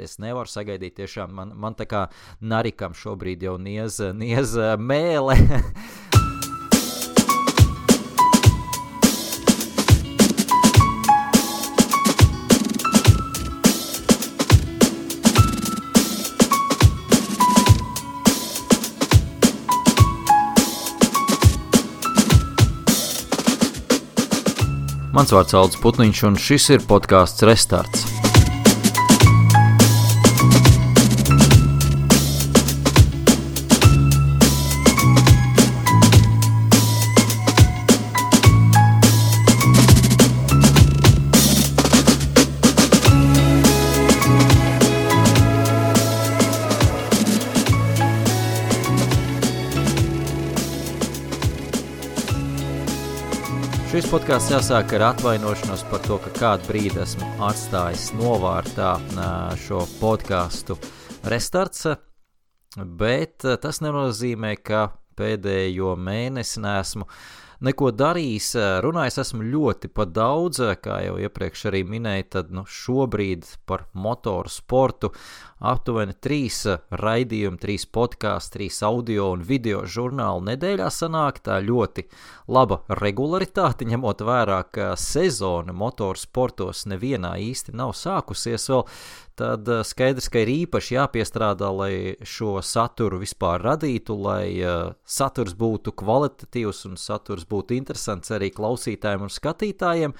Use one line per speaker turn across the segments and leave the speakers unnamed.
Es nevaru sagaidīt tiešām, man tā kā narikam šobrīd jau niez mēle. Mans vārds Aldis Putniņš, un šis ir podcasts Restarts. Šis podcasts jāsāk ar atvainošanos par to, ka kādu brīdi esmu atstājis novārtā šo podcastu Restarts, bet tas nenozīmē, ka pēdējo mēnesi neesmu neko darījis. Runājis esmu ļoti pa daudz, kā jau iepriekš arī minēju, tad šobrīd par motoru sportu aptuveni 3 raidījumi, 3 podcasts, 3 audio un video žurnāli nedēļā sanāk. Tā ļoti laba regularitāte, ņemot vērā, ka sezona motoru sportos nevienā īsti nav sākusies vēl. Tad skaidrs, ka ir īpaši jāpiestrādā, lai šo saturu vispār radītu, lai saturs būtu kvalitatīvs un saturs būtu interesants arī klausītājiem un skatītājiem,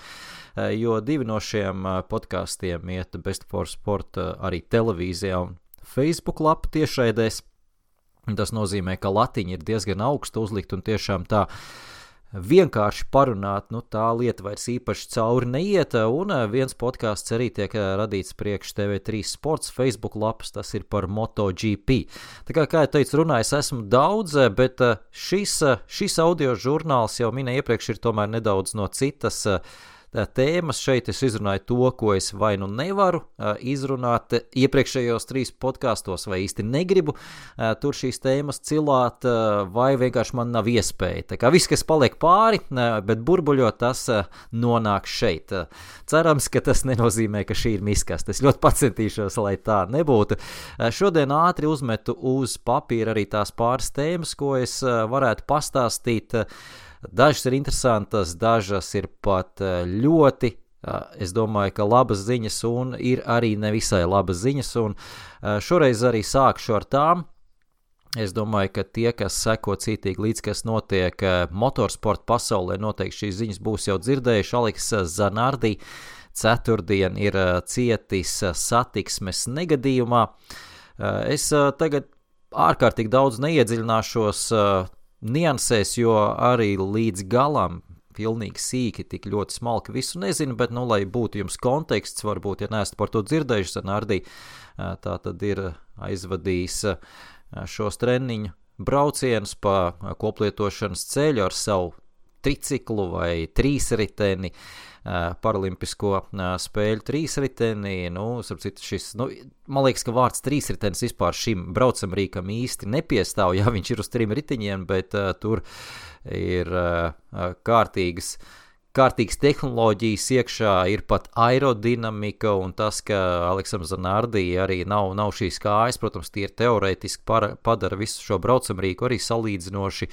jo 2 no šiem podkastiem iet Best for Sport arī televīzijā un Facebook lapu tiešraidēs. Tas nozīmē, ka latiņa ir diezgan augsta uzlikt un tiešām tā vienkārši parunāt, tā lieta vairs īpaši cauri neiet, un viens podcasts arī tiek radīts priekš TV3 Sports Facebook lapas, tas ir par MotoGP. Tā kā jau teicu, runājis esmu daudz, bet šis audio žurnāls jau minēju iepriekš ir tomēr nedaudz no citas tēmas. Šeit es izrunāju to, ko es vai nevaru izrunāt iepriekšējos 3 podkastos, vai īsti negribu tur šīs tēmas cilāt, vai vienkārši man nav iespēja. Tā kā viss, kas paliek pāri, bet burbuļot, tas nonāk šeit. Cerams, ka tas nenozīmē, ka šī ir miskaste. Es ļoti pacentīšos, lai tā nebūtu. Šodien ātri uzmetu uz papīra arī tās pāris tēmas, ko es varētu pastāstīt. Dažas ir interesantas, dažas ir pat ļoti, es domāju, ka labas ziņas, un ir arī nevisai labas ziņas, un šoreiz arī sākšu ar tām. Es domāju, ka tie, kas seko cītīgi līdz, kas notiek motorsporta pasaulē, noteikti šīs ziņas būs jau dzirdējuši. Alex Zanardi ceturtdien ir cietis satiksmes negadījumā. Es tagad ārkārtīgi daudz neiedziļināšos niansēs, jo arī līdz galam pilnīgi sīki, tik ļoti smalki visu nezinu, bet, lai būtu jums konteksts, varbūt, ja neesat par to dzirdējuši, Zanardi tā tad ir aizvadījis šos treniņu braucienus pa koplietošanas ceļu ar savu triciklu vai trīsriteni, paralimpisko spēļu trīsriteni. Starp citu, man liekas, ka vārds trīsritenis vispār šim braucamrīkam īsti nepiestāv, ja viņš ir uz 3 riteņiem, bet tur ir kārtīgas tehnoloģijas iekšā, ir pat aerodinamika, un tas, ka Aleksam Zanardi arī nav šīs kājas, protams, tie ir teorētiski padara visu šo braucamrīku arī salīdzinoši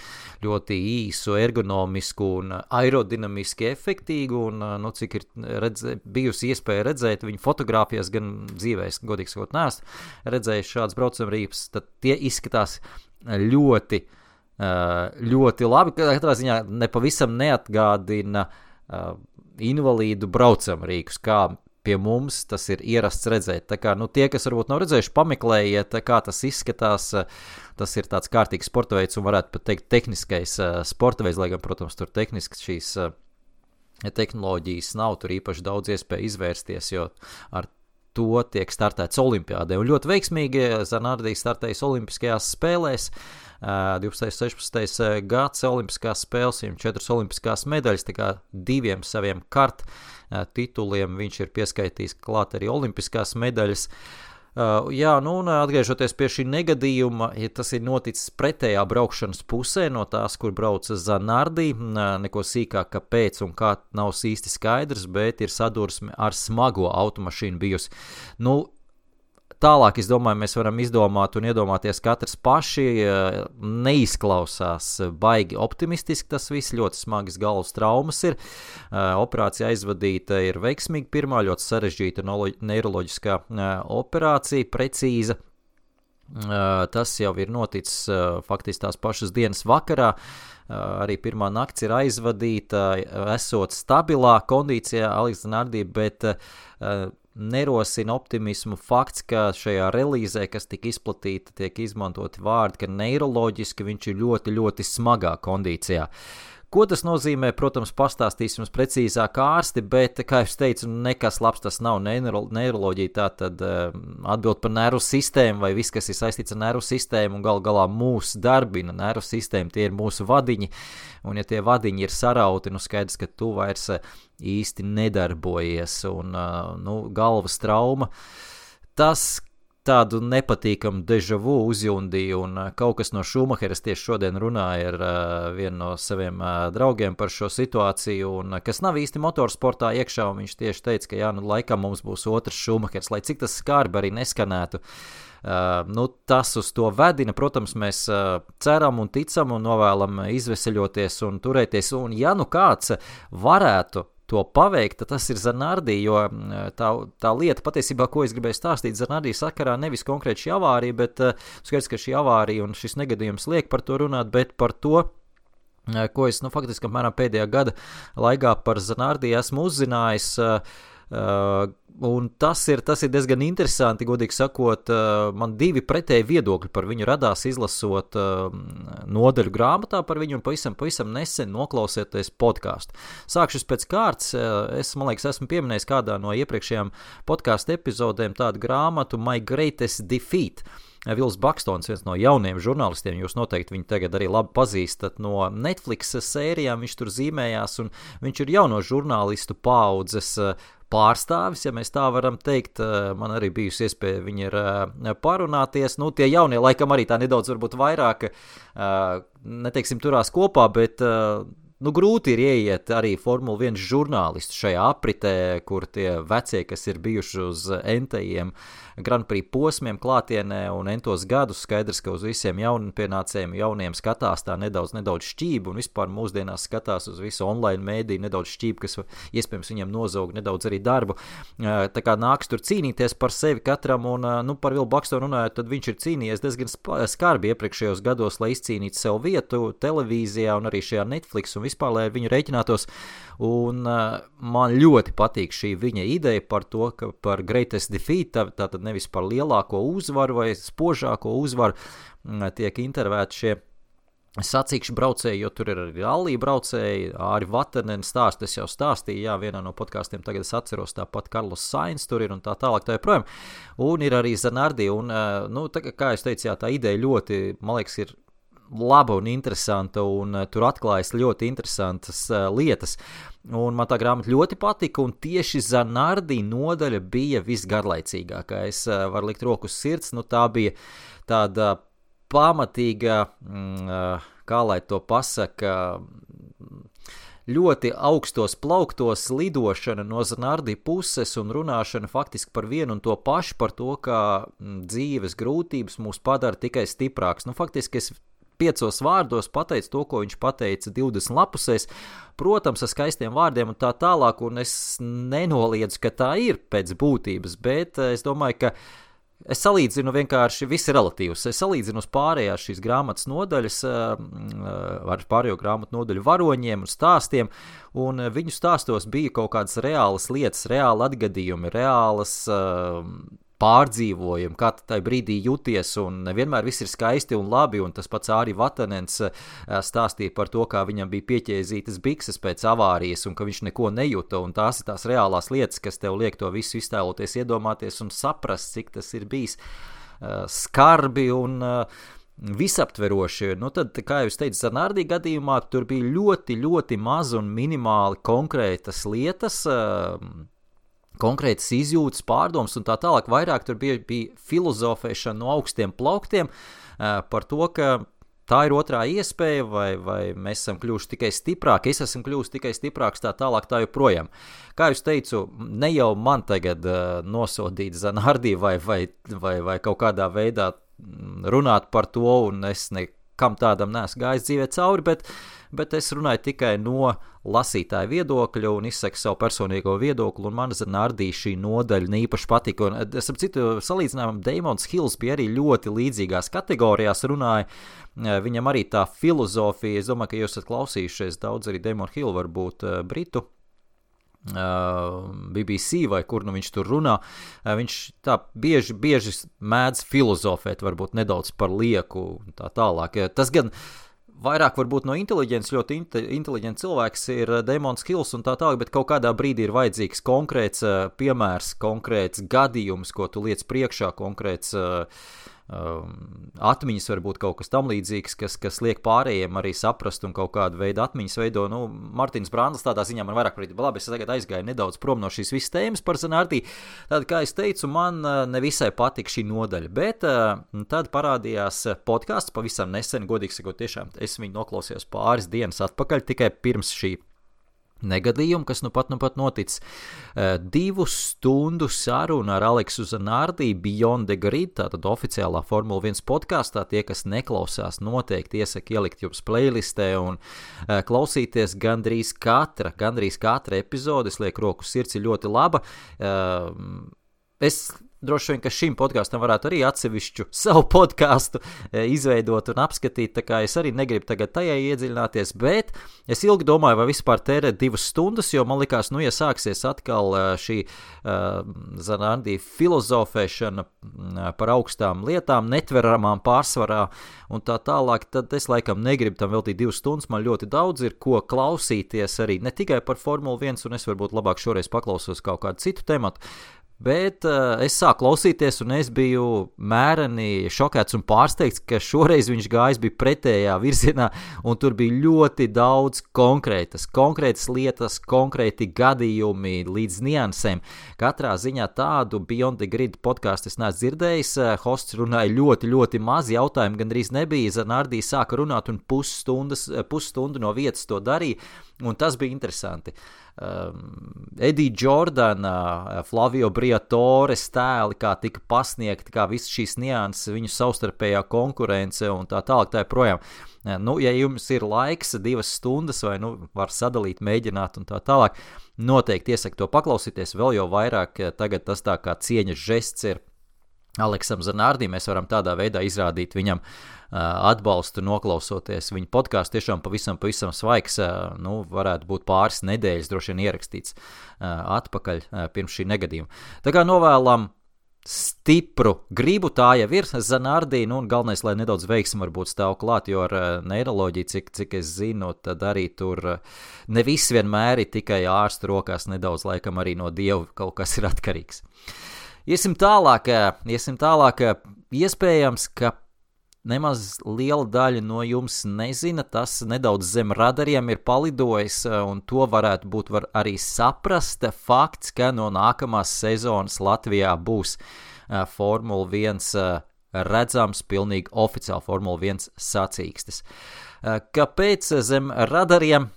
ļoti īsu, ergonomisku un aerodinamiski efektīgu, un cik ir bijusi iespēja redzēt viņu fotogrāfijās, gan dzīvēs, godīgi sakot, neesmu redzējis šāds braucamrīks, tad tie izskatās ļoti labi, katrā ziņā nepavisam neatgādina invalīdu braucamrīkus, kā pie mums tas ir ierasts redzēt. Tā kā, tie, kas varbūt nav redzējuši, pameklējiet, kā tas izskatās. Tas ir tāds kārtīgs sporta veids un varētu pat teikt tehniskais sporta veids, lai gan, protams, tur tehniski šīs tehnoloģijas nav, tur īpaši daudz iespēju izvērsties, jo ar to tiek startēts olimpiādē. Un ļoti veiksmīgi Zanardi startējis olimpiskajās spēlēs. 12. 16. gads olimpiskās spēles, viņam 4 olimpiskās medaļas, tā kā 2 saviem tituliem viņš ir pieskaitījis klāt arī olimpiskās medaļas. Un atgriežoties pie šī negadījuma, ja tas ir noticis pretējā braukšanas pusē no tās, kur brauca Zanardi, neko sīkāk kāpēc un kā nav īsti skaidrs, bet ir sadursme ar smago automašīnu bijusi. Tālāk, es domāju, mēs varam izdomāt un iedomāties katrs paši. Neizklausās baigi optimistiski tas viss, ļoti smagas galvas traumas ir. Operācija aizvadīta ir veiksmīgi pirmā, ļoti sarežģīta neiroloģiskā operācija, precīza. Tas jau ir noticis faktiski tās pašas dienas vakarā. Arī pirmā nakts ir aizvadīta, esot stabilā kondīcijā Aleks Zanardī, bet nerosina optimismu fakts, ka šajā relīzē, kas tika izplatīta, tiek izmantoti vārdi, ka neiroloģiski viņš ir ļoti, ļoti smagā kondīcijā. Ko tas nozīmē, protams, pastāstīs jums precīzāk ārsti, bet, kā es teicu, nekas labs tas nav. Neiroloģija tā tad atbild par nervu sistēmu vai viss, kas ir saistīts ar nervu sistēmu un galā mūs darbina nervu sistēmu, tie ir mūsu vadiņi, un ja tie vadiņi ir sarauti, skaidrs, ka tu vairs īsti nedarbojies, un galvas trauma, tas tādu nepatīkamu deja vu uzjundīju, un kaut kas no Šumacheras tieši šodien runāja ar vienu no saviem draugiem par šo situāciju, un kas nav īsti motorsportā iekšā, un viņš tieši teica, ka laikam mums būs otrs Šumachers, lai cik tas skarbi arī neskanētu. Tas uz to vedina, protams, mēs ceram un ticam un novēlam izveseļoties un turēties, un ja kāds varētu to paveikt, tad tas ir Zanardī, jo tā lieta patiesībā, ko es gribēju stāstīt Zanardī sakarā, nevis konkrēti šī avārija, bet skaidrs, ka šī avārija un šis negadījums liek par to runāt, bet par to, ko es faktiski apmēram pēdējā gada laikā par Zanardī esmu uzzinājis, un tas ir diezgan interesanti, godīgi sakot, man divi pretēji viedokļi par viņu radās izlasot nodaļu grāmatā par viņu un pavisam nesen noklausieties podcastu. Sākšos pēc kārtas, man liekas, esmu pieminējis kādā no iepriekšējām podcastu epizodēm tādu grāmatu My Greatest Defeat. Vils Bakstons, viens no jauniem žurnālistiem, jūs noteikti viņu tagad arī labi pazīstat no Netflix sērijām, viņš tur zīmējās, un viņš ir jauno žurnālistu paaudzes pārstāvis, ja mēs tā varam teikt. Man arī bijusi iespēja viņi ir parunāties, tie jaunie laikam arī tā nedaudz varbūt vairāk, neteiksim turās kopā, bet grūti ir ieiet arī Formula 1 žurnālistu šajā apritē, kur tie vecie, kas ir bijuši uz entajiem Grand Prix posmiem klātienē un entos gadus, skaidrs, ka uz visiem jaunpienācējiem, jauniem skatās tā nedaudz šķība un vispār mūsdienās skatās uz visu online mēdī nedaudz šķība, kas iespējams viņam nozaug nedaudz arī darbu. Tā kā nāks tur cīnīties par sevi katram un par Vilu Bakstonu runājot, tad viņš ir cīnījies diezgan skarbi iepriekšējos gados, lai izcīnītu sev vietu televīzijā un arī šajā Netflix un vispār, lai ar viņu rēķinātos. Un man ļoti patīk šī viņa ideja par to, ka par greatest defeat, tātad nevis par lielāko uzvaru vai spožāko uzvaru, tiek intervēti šie sacīkšu braucēji, jo tur ir arī rallija braucēji, Āri Vatanen stāst, es jau stāstīju, vienā no podkāstiem tagad es atceros, tāpat Carlos Sainz tur ir un tā tālāk tā joprojām, un ir arī Zanardī, un, kā es teicu, tā ideja ļoti, man liekas, ir laba un interesanta, un tur atklājas ļoti interesantas lietas. Un man tā grāmata ļoti patika, un tieši Zanardī nodaļa bija visgarlaicīgākā. Es varu likt roku uz sirds, tā bija tāda pamatīga, kā lai to pasaka, ļoti augstos plauktos lidošana no Zanardī puses un runāšana faktiski par vienu un to pašu, par to, kā dzīves grūtības mūs padara tikai stiprāks. Faktiski es 5 vārdos pateicu to, ko viņš pateica 20 lapusēs, protams, ar skaistiem vārdiem un tā tālāk, un es nenoliedzu, ka tā ir pēc būtības, bet es domāju, ka es salīdzinu vienkārši, viss ir relatīvs, es salīdzinu uz pārējās šīs grāmatas nodaļas, ar pārējo grāmatu nodaļu varoņiem un stāstiem, un viņu stāstos bija kaut kādas reālas lietas, reāli atgadījumi, reālas pārdzīvojumi, kā tajā brīdī jūties, un nevienmēr viss ir skaisti un labi, un tas pats Āri Vatanens stāstīja par to, kā viņam bija pieķēzītas bikses pēc avārijas, un ka viņš neko nejuta, un tās ir tās reālās lietas, kas tev liek to visu iztēloties, iedomāties un saprast, cik tas ir bijis skarbi un visaptveroši. Tad, kā jau es teicu, Zanardī gadījumā tur bija ļoti, ļoti maz un minimāli konkrētas lietas, konkrētas izjūtas, pārdomas un tā tālāk. Vairāk tur bija filozofēšana no augstiem plauktiem par to, ka tā ir otrā iespēja, vai mēs esam kļuvuši tikai stiprāki, es esmu kļuvusi tikai stiprāks, tā tālāk, tā joprojām. Kā jūs teicu, ne jau man tagad nosodīt Zanardī vai kaut kādā veidā runāt par to, un es nekam tādam neesmu gājis dzīvē cauri, bet es runāju tikai no lasītāja viedokļa un izsaku savu personīgo viedokli, un man Zanardī šī nodaļa īpaši patika. Un, es ap citu salīdzinājumu, Damons Hills bija arī ļoti līdzīgās kategorijās runāja. Viņam arī tā filozofija, es domāju, ka jūs esat klausījušies daudz arī Damon Hill, varbūt britu BBC vai kur nu viņš tur runā, viņš tā bieži mēdz filozofēt, varbūt nedaudz par lieku un tā tālāk. Tas gan vairāk varbūt no inteliģents, ļoti inteliģents cilvēks ir Damons Hills un tā tālāk, bet kaut kādā brīdī ir vajadzīgs konkrēts piemērs, konkrēts gadījums, ko tu liec priekšā, konkrēts atmiņas, varbūt kaut kas tam līdzīgs, kas liek pārējiem arī saprast un kaut kādu veidu atmiņas veido. Nu, Martins Brandls tādā ziņā man vairāk prīt, labi, es tagad aizgāju nedaudz prom no šīs visas tēmas par Zanardī. Tad, kā es teicu, man nevisai patika šī nodaļa, bet tad parādījās podcasts pavisam nesen, godīgi sakot, tiešām es viņu noklausījos pāris dienas atpakaļ, tikai pirms šī negadījumu, kas nu pat noticis. 2 stundu saruna ar Aleksu Zanardī Beyond the Grid, tātad oficiālā Formula 1 podkastā. Tie, kas neklausās, noteikti iesaku ielikt jums playlistē un klausīties gandrīz katra epizode. Es lieku roku sirds, ir ļoti laba. Es droši vien, ka šim podkastam varētu arī atsevišķu savu podkastu izveidot un apskatīt, tā kā es arī negribu tagad tajā iedziļināties, bet es ilgi domāju, vai vispār tērēt 2 stundas, jo man likās, ja sāksies atkal šī Zanardī filozofēšana par augstām lietām, netveramām pārsvarā un tā tālāk, tad es laikam negribu tam veltīt 2 stundas, man ļoti daudz ir ko klausīties arī, ne tikai par Formulu 1, un es varbūt labāk šoreiz paklausos kaut kādu citu tematu, bet es sāku klausīties, un es biju mēreni šokēts un pārsteigts, ka šoreiz viņš gājis bija pretējā virzienā, un tur bija ļoti daudz konkrētas lietas, konkrēti gadījumi līdz niansēm. Katrā ziņā tādu Beyond the Grid podcastu es neesmu dzirdējis, hosts runāja ļoti, ļoti maz, jautājumu gandrīz nebija, Zanardī sāka runāt un pusstundu no vietas to darīja, un tas bija interesanti. Eddie Jordana, Flavio Briatore tēli, kā tika pasniegti, kā visas šīs nianses, viņu savstarpējā konkurence un tā tālāk, tā joprojām. Nu, ja jums ir laiks 2 stundas vai var sadalīt, mēģināt un tā tālāk, noteikti iesaku to paklausīties, vēl jau vairāk tagad tas tā kā cieņas žests ir Aleksam Zanardī, mēs varam tādā veidā izrādīt viņam atbalstu, noklausoties viņa podcastu, tiešām pavisam svaigs, varētu būt pāris nedēļas droši vien ierakstīts atpakaļ pirms šī negadījuma. Tā kā novēlam stipru gribu, tā jau ir Zanardī, un galvenais, lai nedaudz veiksmi varbūt stāv klāt, jo ar neiroloģiju, cik es zinu, tad arī tur ne viss vienmēr ir tikai ārstu rokās, nedaudz laikam arī no Dieva kaut kas ir atkarīgs. Iesim tālāk, iespējams, ka nemaz liela daļa no jums nezina, tas nedaudz zem radariem ir palidojis, un to varētu būt arī saprast fakts, ka no nākamās sezonas Latvijā būs Formula 1 redzams, pilnīgi oficiāli Formula 1 sacīkstes. Kāpēc zem radariem?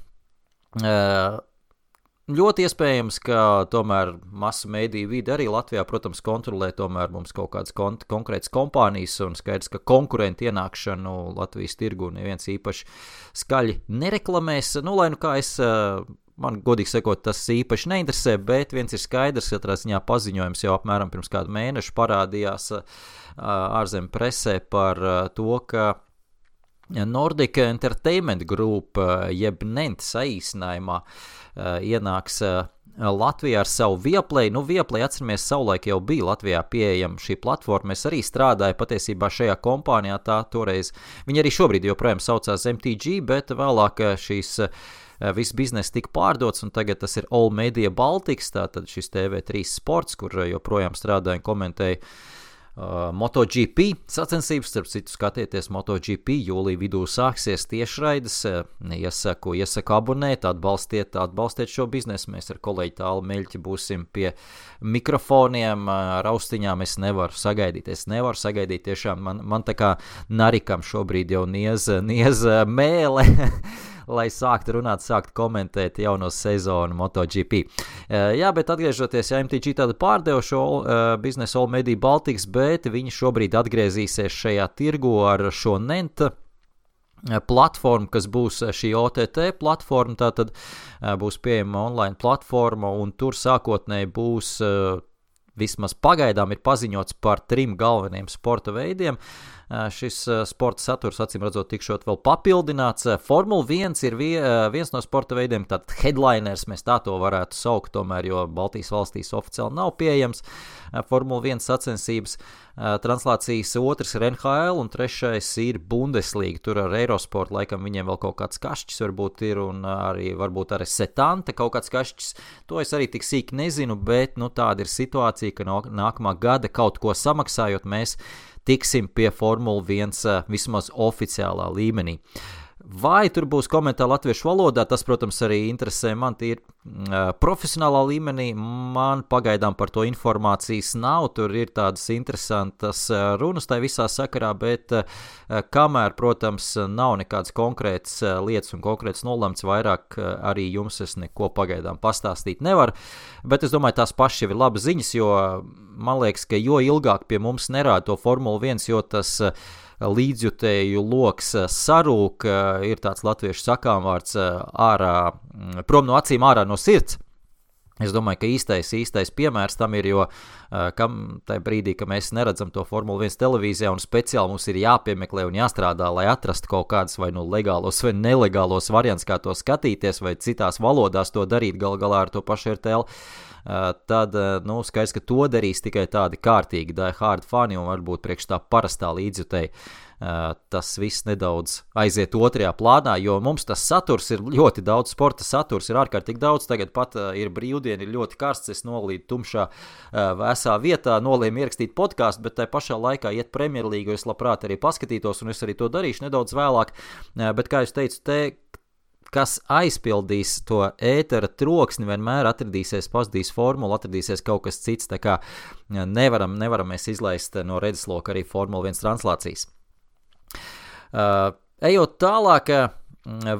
Ļoti iespējams, ka tomēr masu mēdīju vide arī Latvijā, protams, kontrolē tomēr mums kaut kādas konkrētas kompānijas un skaidrs, ka konkurenti ienākšanu Latvijas tirgu neviens īpaši skaļi nereklamēs. Lai kā man godīgi sakot, tas īpaši neinteresē, bet viens ir skaidrs, katrā ziņā paziņojums jau apmēram pirms kādu mēnešu parādījās ārzemju presē par to, ka Nordic Entertainment Group, jeb NENT saīsinājumā, ienāks Latvijā ar savu Viaplay. Viaplay, atceramies, savulaik jau bija Latvijā pieejama šī platforma. Es arī strādāju patiesībā šajā kompānijā, tā toreiz. Viņi arī šobrīd joprojām saucās MTG, bet vēlāk šīs viss bizness tika pārdots, un tagad tas ir All Media Baltics, tātad šis TV3 sports, kur joprojām strādāju un komentēju MotoGP sacensības, starp citu skatieties MotoGP, jūlija vidū sāksies tiešraides, iesaku abonēt, atbalstiet šo biznesu, mēs ar kolēģi Tālu Meļķi būsim pie mikrofoniem, ar austiņām es nevaru sagaidīt, tiešām man tā kā narikam šobrīd jau niez mēle, lai sāktu runāt, sāktu komentēt jauno sezonu MotoGP. Jā, bet atgriežoties, MTG tādu pārdeva šo biznesu All Media Baltics, bet viņi šobrīd atgriezīsies šajā tirgu ar šo NENT platformu, kas būs šī OTT platforma, tātad būs pieejama online platforma, un tur sākotnēji būs vismaz pagaidām ir paziņots par 3 galveniem sporta veidiem. Šis sporta saturs, acīm redzot, tikšot vēl papildināts. Formula 1 ir viens no sporta veidiem, tātad headliners, mēs tā to varētu saukt, tomēr, jo Baltijas valstīs oficiāli nav pieejams Formula 1 sacensības. Translācijas otrs ir NHL un trešais ir Bundesliga. Tur ar Eurosport laikam viņiem vēl kaut kāds kašķis varbūt ir, un arī varbūt arī Setanta kaut kāds kašķis. To es arī tik sīki nezinu, bet tāda ir situācija, ka nākamā gada kaut ko samaksājot, mēs tiksim pie Formula 1 vismaz oficiālā līmenī. Vai tur būs komentāri latviešu valodā, tas, protams, arī interesē man tīri profesionālā līmenī. Man pagaidām par to informācijas nav, tur ir tādas interesantas runas tai visā sakarā, bet kamēr, protams, nav nekādas konkrētas lietas un konkrētas nolemts, vairāk arī jums es neko pagaidām pastāstīt nevaru. Bet es domāju, tās pašas jau ir labas ziņas, jo man liekas, ka jo ilgāk pie mums nerāda to Formula 1, jo tas līdzjutēju loks sarūk, ir tāds latviešu sakāmvārds prom no acīm, ārā no sirds. Es domāju, ka īstais piemērs tam ir, jo tajā brīdī, ka mēs neredzam to Formula 1 televīzijā un speciāli mums ir jāpiemeklē un jāstrādā, lai atrastu kaut kādas vai legālos vai nelegālos variants, kā to skatīties, vai citās valodās to darīt galā ar to pašu RTL, tad, skaidrs, ka to darīs tikai tādi kārtīgi die hard fani un varbūt priekš tā parastā līdzjutēji. Tas viss nedaudz aiziet otrajā plānā, jo mums tas saturs ir ļoti daudz, sporta saturs ir ārkārtīgi daudz, tagad pat ir brīvdiena, ir ļoti karsts, es nolīdu tumšā vēsā vietā, nolēmu ierakstīt podcastu, bet tai pašā laikā iet Premjerlīgu, es labprāt arī paskatītos, un es arī to darīšu nedaudz vēlāk, bet kā es teicu, kas aizpildīs to ētera troksni, vienmēr atradīsies pazudīs formula, atradīsies kaut kas cits, tā kā nevaram mēs izlaist no redzesloka arī Formula 1 translācijas. Ejot tālāk,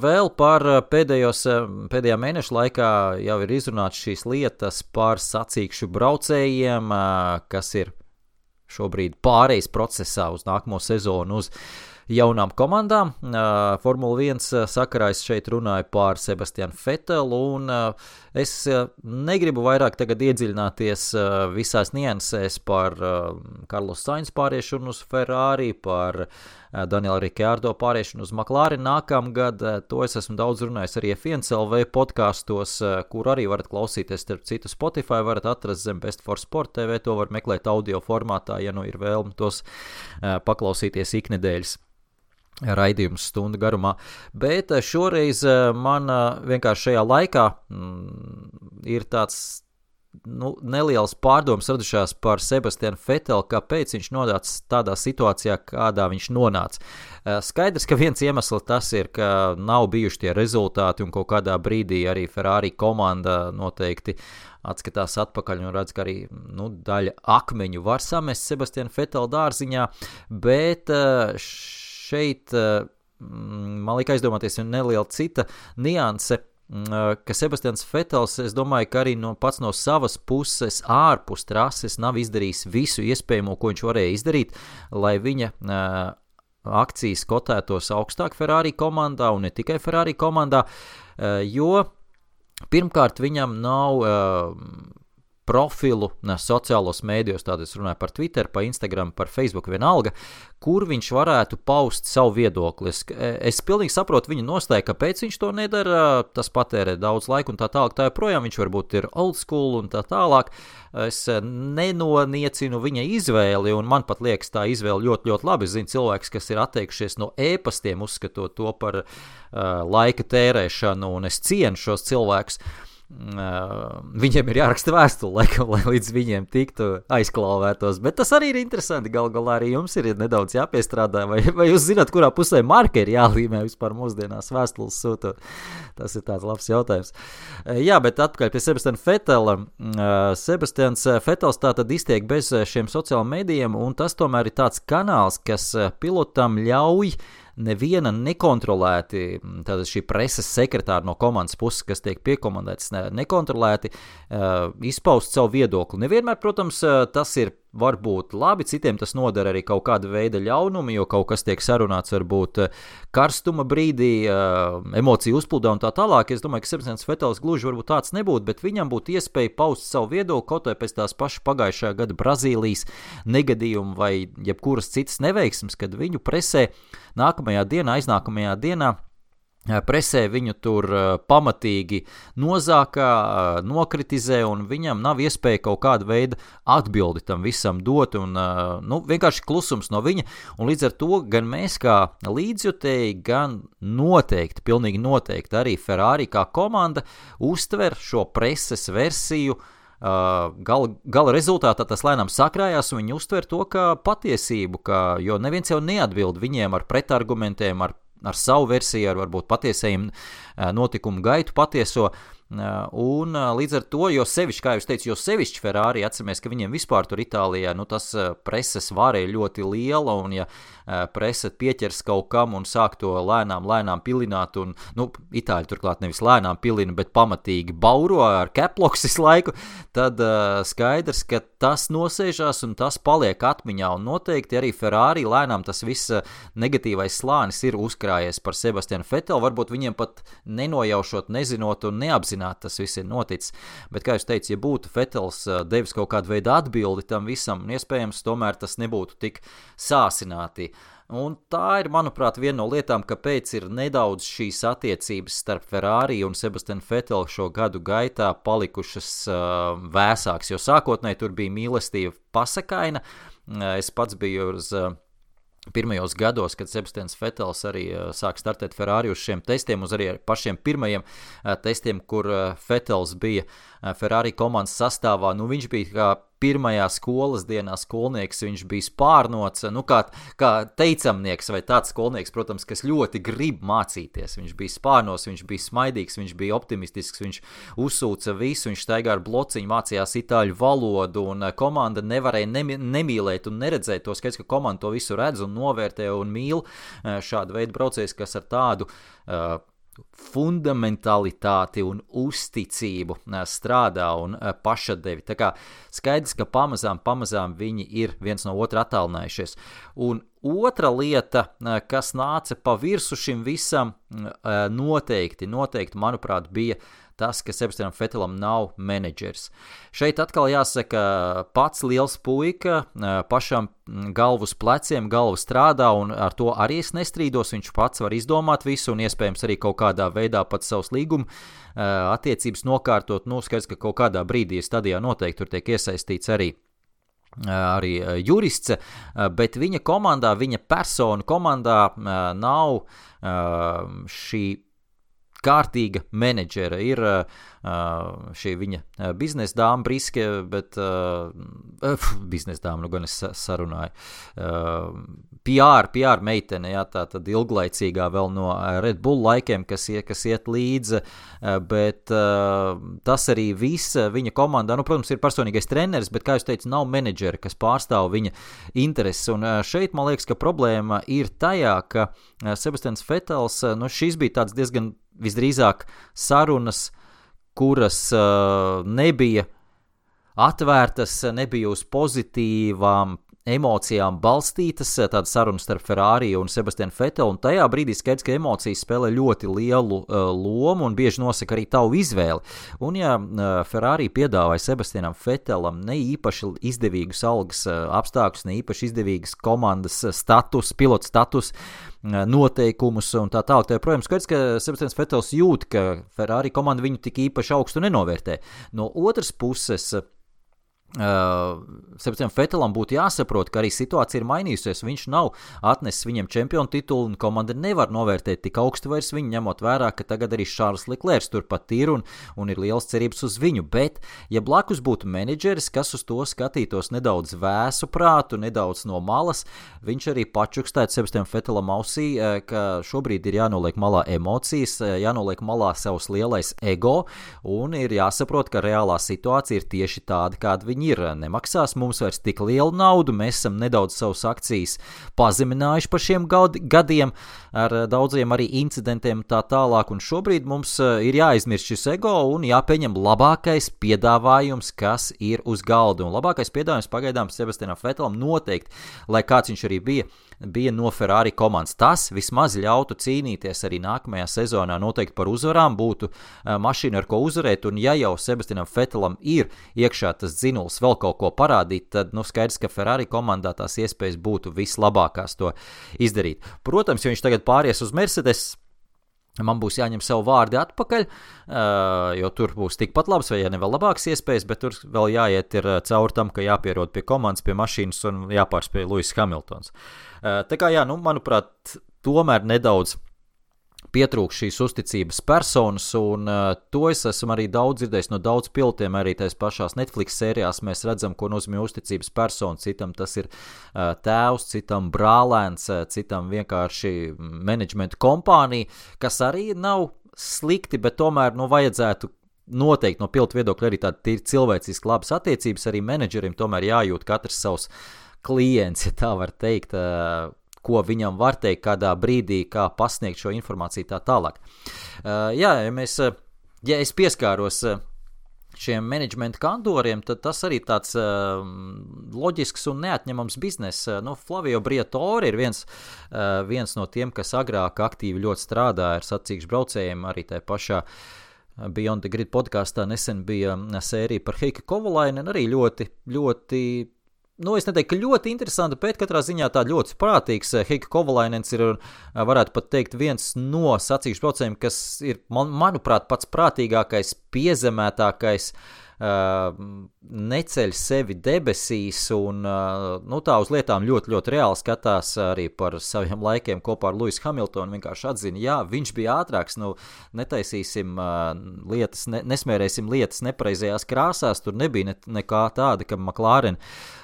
vēl par pēdējā mēneša laikā jau ir izrunāts šīs lietas par sacīkšu braucējiem, kas ir šobrīd pārejas procesā uz nākamo sezonu uz jaunām komandām. Formula 1 sakarā es šeit runāju par Sebastianu Vetelu, un es negribu vairāk tagad iedziļināties visās niansēs par Carlos Sainz pāriešanu uz Ferrari, par Daniela Ricciardo pāriešanu uz McLaren nākamgad. To es esmu daudz runājis arī F1LV podkastos, kur arī varat klausīties, starp citu Spotify varat atrast zem Best for Sport TV, to var meklēt audio formātā, ja ir vēlme tos paklausīties iknedēļas raidījums stundu garumā, bet šoreiz man vienkārši šajā laikā ir tāds nelielas pārdomas radušās par Sebastianu Vetelu, kāpēc viņš nonāca tādā situācijā, kādā viņš nonāca. Skaidrs, ka viens iemesls tas ir, ka nav bijuši tie rezultāti un kaut kādā brīdī arī Ferrari komanda noteikti atskatās atpakaļ un redz, ka arī daļa akmeņu var samest Sebastianu Vetelu dārziņā, bet šeit man liek aizdomāties neliela cita nianse, ka Sebastians Vetels, es domāju, ka arī pats no savas puses ārpus trases nav izdarījis visu iespējamo, ko viņš varēja izdarīt, lai viņa akcijas kotētos augstāk Ferrari komandā un ne tikai Ferrari komandā, jo pirmkārt viņam nav profilu sociālos mēdījos, tātad es runāju par Twitter, par Instagram, par Facebook vienalga, kur viņš varētu paust savu viedokli. Es pilnīgi saprotu viņa nostāju, kāpēc viņš to nedara, tas patērē daudz laika un tā tālāk, tā joprojām viņš varbūt ir old school un tā tālāk. Es nenoniecinu viņa izvēli, un man pat liekas tā izvēle ļoti, ļoti labi. Es zinu cilvēks, kas ir atteikušies no ēpastiem, uzskatot to par laika tērēšanu, un es cienu šos cilvēkus. viņiem ir jāraksta vēstuli, lai līdz viņiem tiktu aizklāvētos, bet tas arī ir interesanti, gal galā arī jums ir nedaudz jāpiestrādā, vai jūs zināt, kurā pusē marka ir jālīmē vispār mūsdienās vēstules sūtot, tas ir tāds labs jautājums. Jā, bet atpakaļ pie Sebastiana Vettela. Sebastians Vettels tātad iztiek bez šiem sociālajiem medijiem, un tas tomēr ir tāds kanāls, kas pilotam ļauj neviena nekontrolēti, tātad šī preses sekretāra no komandas puses, kas tiek piekomandēts nekontrolēti, izpaust savu viedokli. Nevienmēr, protams, tas ir varbūt labi, citiem tas nodara arī kaut kāda veida ļaunumu, jo kaut kas tiek sarunāts varbūt karstuma brīdī, emociju uzplūdā un tā tālāk. Es domāju, ka Sebastians Vettels gluži varbūt tāds nebūtu, bet viņam būtu iespēja paust savu viedokli kaut vai pēc tās pašas pagājušā gada Brazīlijas negadījuma vai jebkuras citas neveiksmes, kad viņu presē nākamajā dienā, aiznākamajā dienā presē viņu tur pamatīgi nozākā, nokritizē, un viņam nav iespēja kaut kāda veida atbildi tam visam dot, un vienkārši klusums no viņa, un līdz ar to gan mēs kā līdzjutēji, gan noteikti, pilnīgi noteikti arī Ferrari kā komanda uztver šo preses versiju, gala rezultātā tas lēnām sakrājās, un viņi uztver to kā patiesību, jo neviens jau neatbild viņiem ar pretargumentiem, ar savu versiju, ar varbūt patiesajiem notikumu gaitu patieso, un līdz ar to, jo sevišķi, kā jūs teicu, jo sevišķi Ferrari, atceramies, ka viņiem vispār tur Itālijā, tas preses vāra ir ļoti liela, un ja prese pieķers kaut kam un sāk to lēnām pilināt, un, Itāļi turklāt nevis lēnām pilina, bet pamatīgi bauro ar caploks visu laiku, tad skaidrs, ka tas nosēžās un tas paliek atmiņā, un noteikti arī Ferrari lēnām tas viss negatīvais slānis ir uzkrājies par Sebastianu Vettelu, varbūt viņiem pat nenojaušot, nezinot un neapzināt, tas viss ir noticis, bet, kā jūs teicu, ja būtu Vettels devis kaut kādu veidu atbildi tam visam, iespējams, tomēr tas nebūtu tik sāsināti. Un tā ir, manuprāt, viena no lietām, kāpēc ir nedaudz šīs attiecības starp Ferrari un Sebastianu Vettelu šo gadu gaitā palikušas vēsāks, jo sākotnēji tur bija mīlestība pasakaina. Es pats biju uz pirmajos gados, kad Sebastians Vettels arī sāk startēt Ferrari uz šiem testiem, uz arī pašiem pirmajiem testiem, kur Vettels bija Ferrari komandas sastāvā. Viņš bija kā pirmajā skolas dienā skolnieks, viņš bija spārnots, kā teicamnieks vai tāds skolnieks, protams, kas ļoti grib mācīties. Viņš bija spārnos, viņš bija smaidīgs, viņš bija optimistisks, viņš uzsūca visu, viņš staigā ar blociņu, mācījās itāļu valodu, un komanda nevarēja nemīlēt un neredzēt to skaidrs, ka komanda to visu redz un novērtē un mīl šādu veidu braucējus, kas ar tādu fundamentalitāti un uzticību strādā un pašatdevi. Tā kā skaidrs, ka pamazām viņi ir viens no otra attālinājušies. Un otra lieta, kas nāca pa virsu šim visam, noteikti, manuprāt, bija tas, ka Sebastianam Vettelam nav menedžers. Šeit atkal jāsaka, pats liels puika, pašam galvu uz pleciem, galva strādā, un ar to arī es nestrīdos, viņš pats var izdomāt visu, un iespējams arī kaut kādā veidā pat savus līguma attiecības nokārtot, skaidrs, ka kaut kādā brīdī stadijā noteikti tur tiek iesaistīts arī jurists, bet viņa komandā, viņa persona komandā nav šī kārtīga menedžera. Ir šī viņa biznesa dāma Briske, bet biznesa dāma, gan es sarunāju. PR meitene, tā tad ilglaicīgā vēl no Red Bull laikiem, kas iet līdzi, bet tas arī viss viņa komandā, protams, ir personīgais treneris, bet, kā jūs teicu, nav menedžera, kas pārstāv viņa intereses, un šeit, man liekas, ka problēma ir tajā, ka Sebastians Vettels, šis bija tāds diezgan visdrīzāk sarunas, kuras nebija atvērtas, nebija uz pozitīvām emocijām balstītas, tāda saruna starp Ferrari un Sebastianu Vettelu, un tajā brīdī skaidrs, ka emocijas spēlē ļoti lielu lomu un bieži nosaka arī tavu izvēli. Un ja Ferrari piedāvāja Sebastianam Vettelam ne īpaši izdevīgus algas apstākļus, ne īpaši izdevīgas komandas status, pilotu status, noteikumus un tā tālāk. Protams, skaidrs, ka Sebastians Vettels jūt, ka Ferrari komanda viņu tik īpaši augstu nenovērtē. No otras puses, Sebastianam Vettelam būtu jāsaprot, ka arī situācija ir mainījusies. Viņš nav atnesis viņiem čempionu titulu, un komanda nevar novērtēt tik augstu vairs viņu, ņemot vērā, ka tagad arī Šārls Leklērs turpat ir un ir liels cerības uz viņu. Bet, ja blakus būtu menedžeris, kas uz to skatītos nedaudz vēsu prātu, nedaudz no malas, viņš arī pačukstētu Sebastianam Vettelam ausī, ka šobrīd ir jānoliek malā emocijas, jānoliek malā savs lielais ego, un ir jāsaprot, ka reālā situācija ir tieši tāda, kāda viņi ir. Nemaksās mums vairs tik lielu naudu, mēs esam nedaudz savus akcijas pazeminājuši par šiem gadiem ar daudziem arī incidentiem tā tālāk, un šobrīd mums ir jāizmirst šis ego un jāpieņem labākais piedāvājums, kas ir uz galda, un labākais piedāvājums pagaidām Sebastianam Vettelam noteikti, lai kāds viņš arī bija no Ferrari komandas. Tas vismaz ļautu cīnīties arī nākamajā sezonā noteikti par uzvarām, būtu mašīna, ar ko uzvarēt, un ja jau Sebastianam Vettelam ir iekšā tas dzinuls vēl kaut ko parādīt, tad skaidrs, ka Ferrari komandā tās iespējas būtu vislabākās to izdarīt. Protams, ja viņš tagad pāries uz Mercedes, man būs jāņem savu vārdi atpakaļ, jo tur būs tikpat labs vai ja ne vēl labākas iespējas, bet tur vēl jāiet ir caur tam, ka jāpierod pie komandas, pie mašīnas un jāpārspēj Lewis Hamiltons. Tā kā manuprāt, tomēr nedaudz pietrūkst šīs uzticības personas, un to es esmu arī daudz dzirdējis no daudz pilotiem, arī tais pašās Netflix sērijās mēs redzam, ko nozīmē uzticības persona. Citam tas ir tēvs, citam brālēns, citam vienkārši menedžmenta kompānija, kas arī nav slikti, bet tomēr vajadzētu noteikti no pilotu viedokļa arī tādi cilvēciski labas attiecības, arī menedžerim tomēr jājūt katrs savs klients, ja tā var teikt, ko viņam var teikt, kādā brīdī, kā pasniegt šo informāciju tā tālāk. Ja es pieskāros šiem menedžmenta kantoriem, tad tas arī tāds loģisks un neatņemams biznes. Flavio Briatore ir viens no tiem, kas agrāk aktīvi ļoti strādāja ar sacīkšu braucējiem, arī tā pašā Beyond the Grid podkāstā nesen bija sērija par Heikki Kovalainen, arī ļoti, ļoti es neteiktu, ka ļoti interesanti, bet katrā ziņā tā ļoti prātīgs. Heikki Kovalainens ir, varētu pat teikt, viens no sacīkšu braucējiem, kas ir, manuprāt, pats prātīgākais, piezemētākais, neceļ sevi debesīs un tā uz lietām ļoti, ļoti reāli skatās arī par saviem laikiem kopā ar Lewis Hamiltonu, vienkārši atzina, jā, viņš bija ātrāks, netaisīsim lietas, nesmērēsim lietas nepareizajās krāsās, tur nebija nekā tāda, ka McLaren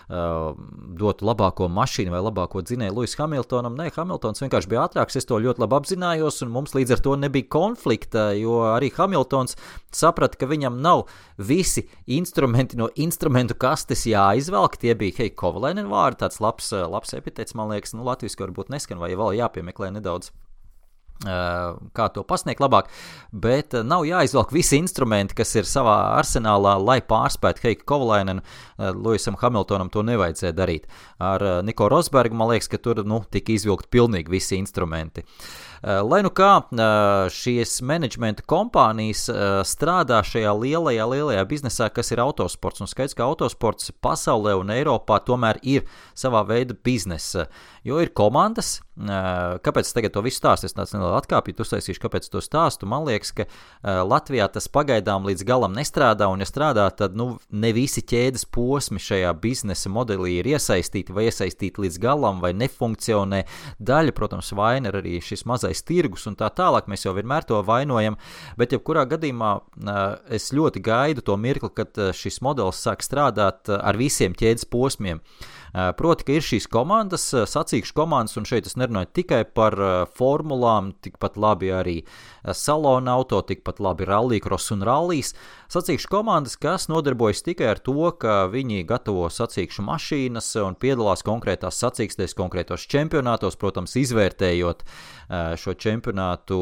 dotu labāko mašīnu vai labāko dzinēju Lewis Hamiltonam. Nē, Hamiltons vienkārši bija ātrāks, es to ļoti labi apzinājos, un mums līdz ar to nebija konflikta, jo arī Hamiltons saprata, ka viņam nav visi instrumenti no instrumentu kastes jāizvelk. Tie bija Heikki Kovalainen vārdi, tāds labs epitets, man liekas, latviski varbūt neskan, vai vēl jāpiemeklē nedaudz, kā to pasniegt labāk, bet nav jāizvelk visi instrumenti, kas ir savā arsenālā, lai pārspētu Heikki Kovalainenu. Lewisam Hamiltonam to nevajadzēja darīt. Ar Nico Rosbergu, man liekas, ka tur tika izvilkt pilnīgi visi instrumenti. Lai kā šīs menedžmenta kompānijas strādā šajā lielajā biznesā, kas ir autosports, un skaidrs, ka autosports pasaulē un Eiropā tomēr ir savā veida biznesa, jo ir komandas. Kāpēc es tagad to visu stāstu? Es tāds nelielu atkāpju, uztaisīšu, kāpēc to stāstu. Man liekas, ka Latvijā tas pagaidām līdz galam nestrādā, un ja strādā, tad ne visi ķēdes posmi šajā biznesa modelī ir iesaistīti vai iesaistīti līdz galam, vai nefunkcionē. Daļa, protams, vaina ir arī šis mazais tirgus un tā tālāk, mēs jau vienmēr to vainojam, bet jebkurā gadījumā es ļoti gaidu to mirkli, kad šis modelis sāk strādāt ar visiem ķēdes posmiem. Proti, ka ir šīs komandas, sacīkšu komandas, un šeit es nerunāju tikai par formulām, tikpat labi arī salona auto, tikpat labi rallycross un rallijas. Sacīkšu komandas, kas nodarbojas tikai ar to, ka viņi gatavo sacīkšu mašīnas un piedalās konkrētās sacīkstēs, konkrētos čempionātos, protams, izvērtējot šo čempionātu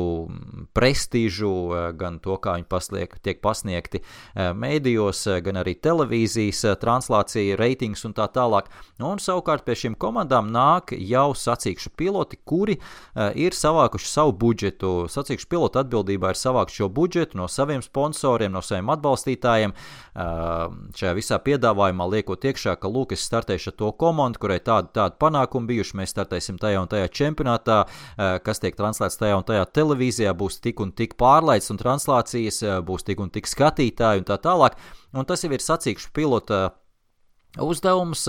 prestīžu, gan to, kā viņi tiek pasniegti mēdījos, gan arī televīzijas translācija, reitings un tā tālāk. Un savukārt pie šīm komandām nāk jau sacīkšu piloti, kuri ir savākuši savu budžetu. Sacīkšu pilota atbildībā ir savākt šo budžetu no saviem sponsoriem, no saviem atbalstītājiem. Šajā visā piedāvājumā liekot iekšā, ka lūk, es startēšu ar to komandu, kurai tādu panākumu bijuši, mēs startēsim tajā un tajā čempionātā, kas tiek translēts tajā un tajā televīzijā, būs tik un tik pārlaids un translācijas, būs tik un tik skatītāji un tā tālāk. Un tas jau ir sacīkšu pilota uzdevums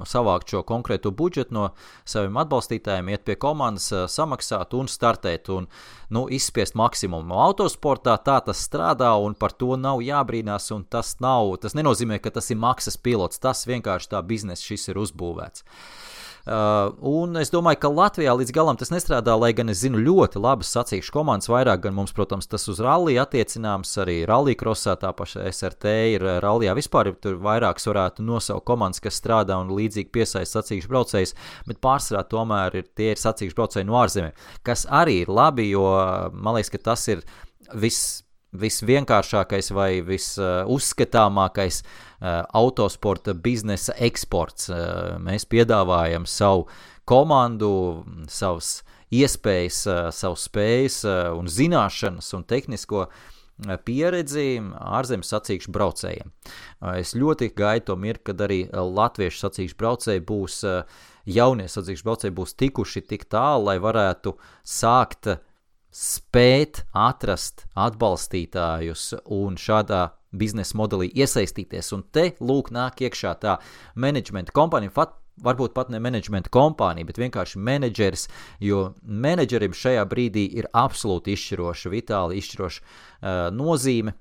savākt šo konkrēto budžetu no saviem atbalstītājiem, iet pie komandas, samaksāt un startēt un izspiest maksimumu. Autosportā tā tas strādā un par to nav jābrīnās, un tas nenozīmē, ka tas ir maksas pilots, tas vienkārši tā biznesa šis ir uzbūvēts. Un es domāju, ka Latvijā līdz galam tas nestrādā, lai gan es zinu ļoti labas sacīkšu komandas, vairāk gan mums, protams, tas uz rallija attiecināms, arī rallija krosā, tā paša SRT ir rallijā vispār, tur vairākas varētu nosaukt komandas, kas strādā un līdzīgi piesaista sacīkšu braucējus, bet pārsvarā tomēr tie ir sacīkšu braucēji no ārzemēm, kas arī ir labi, jo man liekas, ka tas ir visvienkāršākais vai visuzskatāmākais autosporta biznesa eksports. Mēs piedāvājam savu komandu, savas iespējas, savas spējas un zināšanas un tehnisko pieredzi ārzemju sacīkšu braucējiem. Es ļoti gaidu to mirkli, kad arī latviešu sacīkšu braucēji būs, jaunie sacīkšu braucēji būs tikuši tik tālu, lai varētu sākt spēt atrast atbalstītājus un šādā biznesa modelī iesaistīties. Un te, lūk, nāk iekšā tā menedžmenta kompānija, varbūt pat ne menedžmenta kompānija, bet vienkārši menedžeris, jo menedžerim šajā brīdī ir absolūti izšķiroša, vitāli izšķiroša nozīme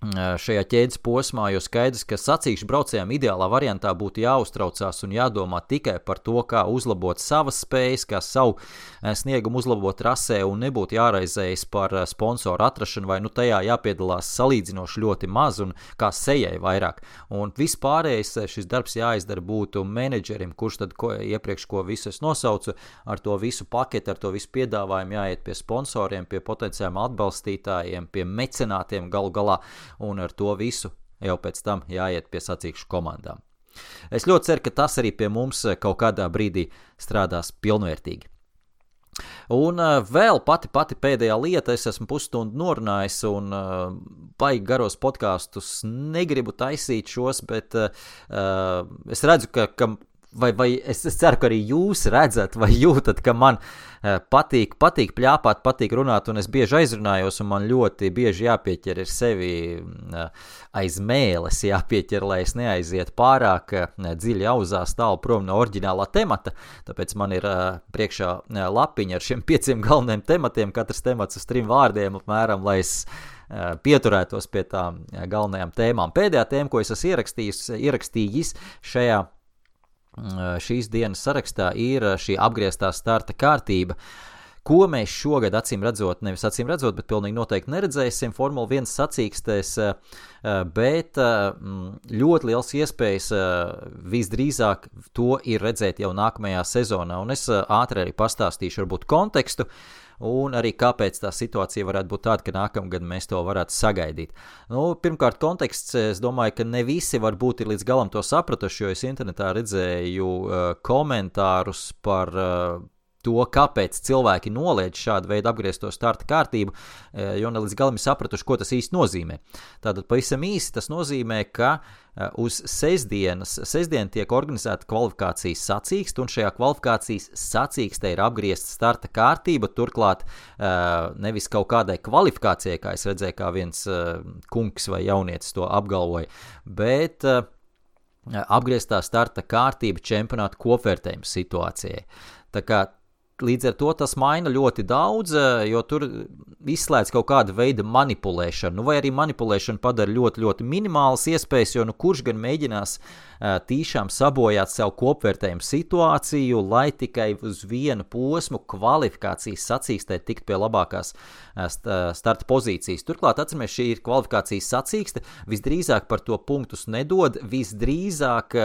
šajā ķēdes posmā, jo skaidrs, ka sacīkšu braucējiem ideālā variantā būtu jāuztraucās un jādomā tikai par to, kā uzlabot savas spējas, kā savu sniegumu uzlabot trasē un nebūtu jāraizējas par sponsoru atrašanu vai tajā jāpiedalās salīdzinoši ļoti maz un kā sejai vairāk. Un vispārējais šis darbs jāizdara būtu menedžerim, kurš tad iepriekš ko visu es nosaucu, ar to visu paketi, ar to visu piedāvājumu jāiet pie sponsoriem, pie potenciāliem atbalstītājiem, pie mecenātiem galu galā, un ar to visu jau pēc tam jāiet pie sacīkšu komandām. Es ļoti ceru, ka tas arī pie mums kaut kādā brīdī strādās pilnvērtīgi. Un vēl pati pēdējā lieta, es esmu pusstundu norunājis un baigi garos podkastus negribu taisīt šos, bet es redzu, ka vai es ceru, ka arī jūs redzat vai jūtat, ka man patīk pļāpāt, patīk runāt, un es bieži aizrunājos, un man ļoti bieži jāpieķer ir sevi aiz mēles jāpieķer, lai es neaizietu pārāk dziļi auzās tālu prom no oriģinālā temata, tāpēc man ir priekšā lapiņa ar šiem 5 galvenajiem tematiem, katrs temats uz 3 vārdiem apmēram, lai es pieturētos pie tām galvenajām tēmām. Pēdējā tēma, ko es esmu ierakstījis šīs dienas sarakstā, ir šī apgrieztā starta kārtība, ko mēs šogad nevis acīm redzot, bet pilnīgi noteikti neredzēsim Formula 1 sacīkstēs, bet ļoti liels iespējas visdrīzāk to ir redzēt jau nākamajā sezonā, un es ātri arī pastāstīšu varbūt kontekstu, un arī kāpēc tā situācija varētu būt tāda, ka nākamgad mēs to varētu sagaidīt. Pirmkārt, konteksts, es domāju, ka ne visi varbūt ir līdz galam to sapratuši, jo es internetā redzēju komentārus par to, kāpēc cilvēki noliedz šādu veidu apgriezto starta kārtību, jo ne līdz galam ir sapratuši, ko tas īsti nozīmē. Tātad pavisam īsi tas nozīmē, ka uz sestdien tiek organizēta kvalifikācijas sacīkste, un šajā kvalifikācijas sacīkstē ir apgriezta starta kārtība, turklāt nevis kaut kādai kvalifikācijai, kā es redzēju, kā viens kungs vai jaunietis to apgalvoja, bet apgrieztā starta kārtība čempionāta kopvērtējuma situācijai. Tā kā līdz ar to tas maina ļoti daudz, jo tur izslēdz kaut kāda veida manipulēšanu, vai arī manipulēšana padara ļoti, ļoti minimālas iespējas, jo kurš gan mēģinās tīšām sabojāt savu kopvērtējumu situāciju, lai tikai uz vienu posmu kvalifikācijas sacīkstē tikt pie labākās starta pozīcijas. Turklāt, atceramies, šī ir kvalifikācijas sacīkste, visdrīzāk par to punktus nedod, visdrīzāk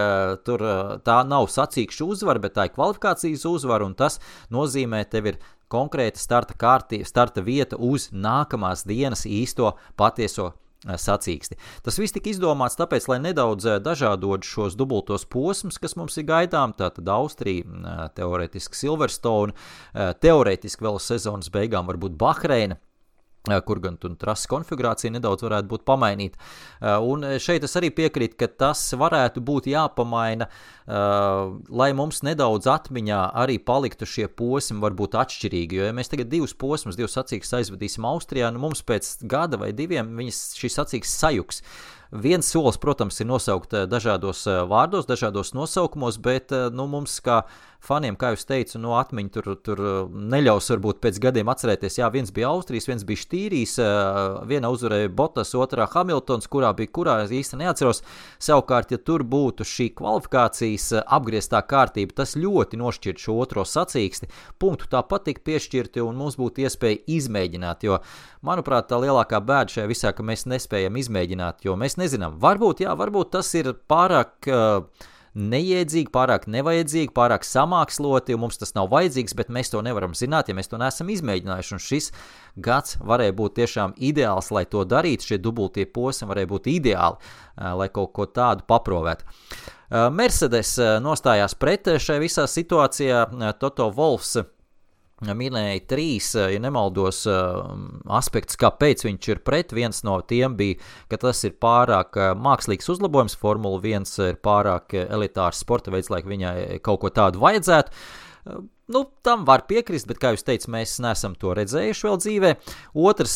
tur tā nav sacīkšu uzvara, bet tā ir kvalifikācijas uzvara, un tas nozīmē, tev ir konkrēta starta vieta uz nākamās dienas īsto patieso sacīksti. Tas viss tika izdomāts tāpēc, lai nedaudz dažādot šos dubultos posmus, kas mums ir gaidām, tātad Austrija, teorētiski Silverstone, teorētiski vēl sezonas beigām varbūt Bahreina, kur gan trases konfigurācija nedaudz varētu būt pamainīta. Un šeit es arī piekrītu, ka tas varētu būt jāpamaina, lai mums nedaudz atmiņā arī paliktu šie posmi varbūt atšķirīgi, jo ja mēs tagad divus sacīkstes aizvadīsim Austrijā, mums pēc gada vai 2 šis sacīkstes sajuks. Viens solis, protams, ir nosaukt dažādos vārdos, dažādos nosaukumos, bet mums kā faniem, kā jūs teicu, atmiņa tur neļaus varbūt pēc gadiem atcerēties. Jā, viens bija Austrijas, viens bija Štīrijs, viena uzvarēja Bottas, otrā Hamiltons, kurā īsti neatceros. Savukārt, ja tur būtu šī kvalifikācijas apgrieztā kārtība, tas ļoti nošķirt šo otro sacīksti. Punktu tāpat tik piešķirti un mums būtu iespēja izmēģināt, jo, manuprāt, tā lielākā bēda šajā visā, ka mēs nespējam izmēģināt, jo mēs nezinām. Varbūt tas ir pārāk neiedzīgi, pārāk nevajadzīgi, pārāk samāksloti, un mums tas nav vajadzīgs, bet mēs to nevaram zināt, ja mēs to neesam izmēģinājuši, un šis gads varēja būt tiešām ideāls, lai to darītu, šie dubultie posmi varēja būt ideāli, lai kaut ko tādu paprovētu. Mercedes nostājās pret šai visā situācijā, Toto Wolffs minēja 3, ja nemaldos, aspektus, kāpēc viņš ir pret. Viens no tiem bija, ka tas ir pārāk mākslīgs uzlabojums, Formula 1 ir pārāk elitārs sporta veids, lai viņai kaut ko tādu vajadzētu. Tam var piekrist, bet, kā jūs teicat, mēs neesam to redzējuši vēl dzīvē. Otrs,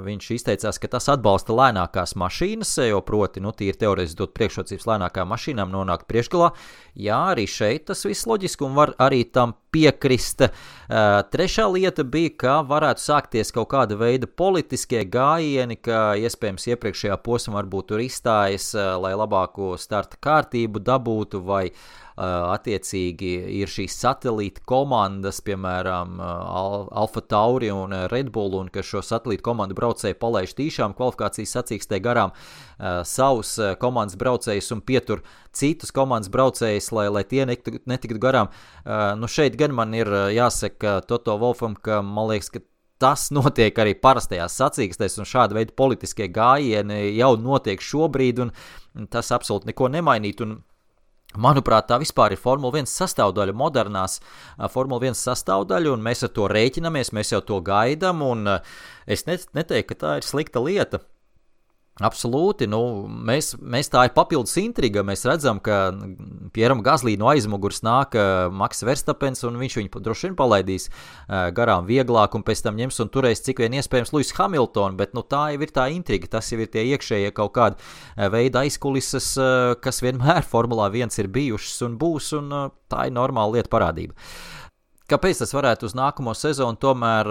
viņš izteicās, ka tas atbalsta lēnākās mašīnas, jo proti, tīri teorētiski dot priekšrocības lēnākām mašīnām nonākt priekšgalā. Jā, arī šeit tas viss loģiski un var arī tam piekrist. Trešā lieta bija, ka varētu sākties kaut kāda veida politiskie gājieni, ka iespējams iepriekšējā posmā varbūt tur izstājas, lai labāko starta kārtību dabūtu, vai attiecīgi ir šīs satelīta komandas, piemēram, Alfa Tauri un Red Bull, un ka šo satelīta komandu braucēji palaiž tīšām kvalifikācijas sacīkstē garām savus komandas braucējus un pietur citus komandas braucējus, lai tie netiktu garām. Šeit gan man ir jāsaka Toto Wolffam, ka man liekas, ka tas notiek arī parastajās sacīkstēs, un šāda veida politiskie gājieni jau notiek šobrīd, un tas absolūti neko nemainīt, un manuprāt, tā vispār ir Formula 1 sastāvdaļa, modernās Formula 1 sastāvdaļa, un mēs ar to rēķinamies, mēs jau to gaidām, un es neteiktu, ka tā ir slikta lieta. Absolūti, mēs tā ir papildus intriga, mēs redzam, ka Pieram Gaslī no aizmugurs nāk Maks Verstapens, un viņš viņu droši vien palaidīs garām vieglāk, un pēc tam ņems un turēs cik vien iespējams Lewis Hamilton, bet tā jau ir tā intriga, tas jau ir tie iekšējie kaut kādi veida aizkulises, kas vienmēr Formulā 1 ir bijušas un būs, un tā ir normāla lieta parādība. Kāpēc tas varētu uz nākamo sezonu tomēr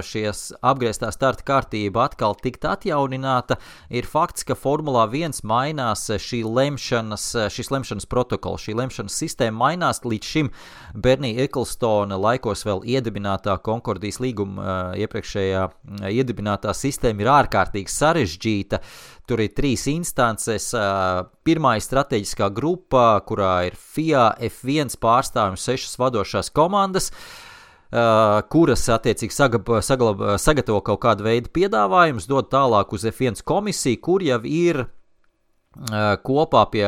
šies apgrieztā starta kārtība atkal tikt atjaunināta, ir fakts, ka Formulā 1 mainās šis lemšanas protokols, šī lemšanas sistēma mainās. Līdz šim Bernie Ecclestone laikos vēl iedibinātā Konkordijas līguma iepriekšējā iedibinātā sistēma ir ārkārtīgi sarežģīta. Tur ir 3 instances. Pirmā ir strateģiskā grupa, kurā ir FIA, F1 pārstāvji un 6 vadošās komandas, kuras attiecīgi sagatavo kaut kādu veidu piedāvājumus, dod tālāk uz F1 komisiju, kur jau ir kopā pie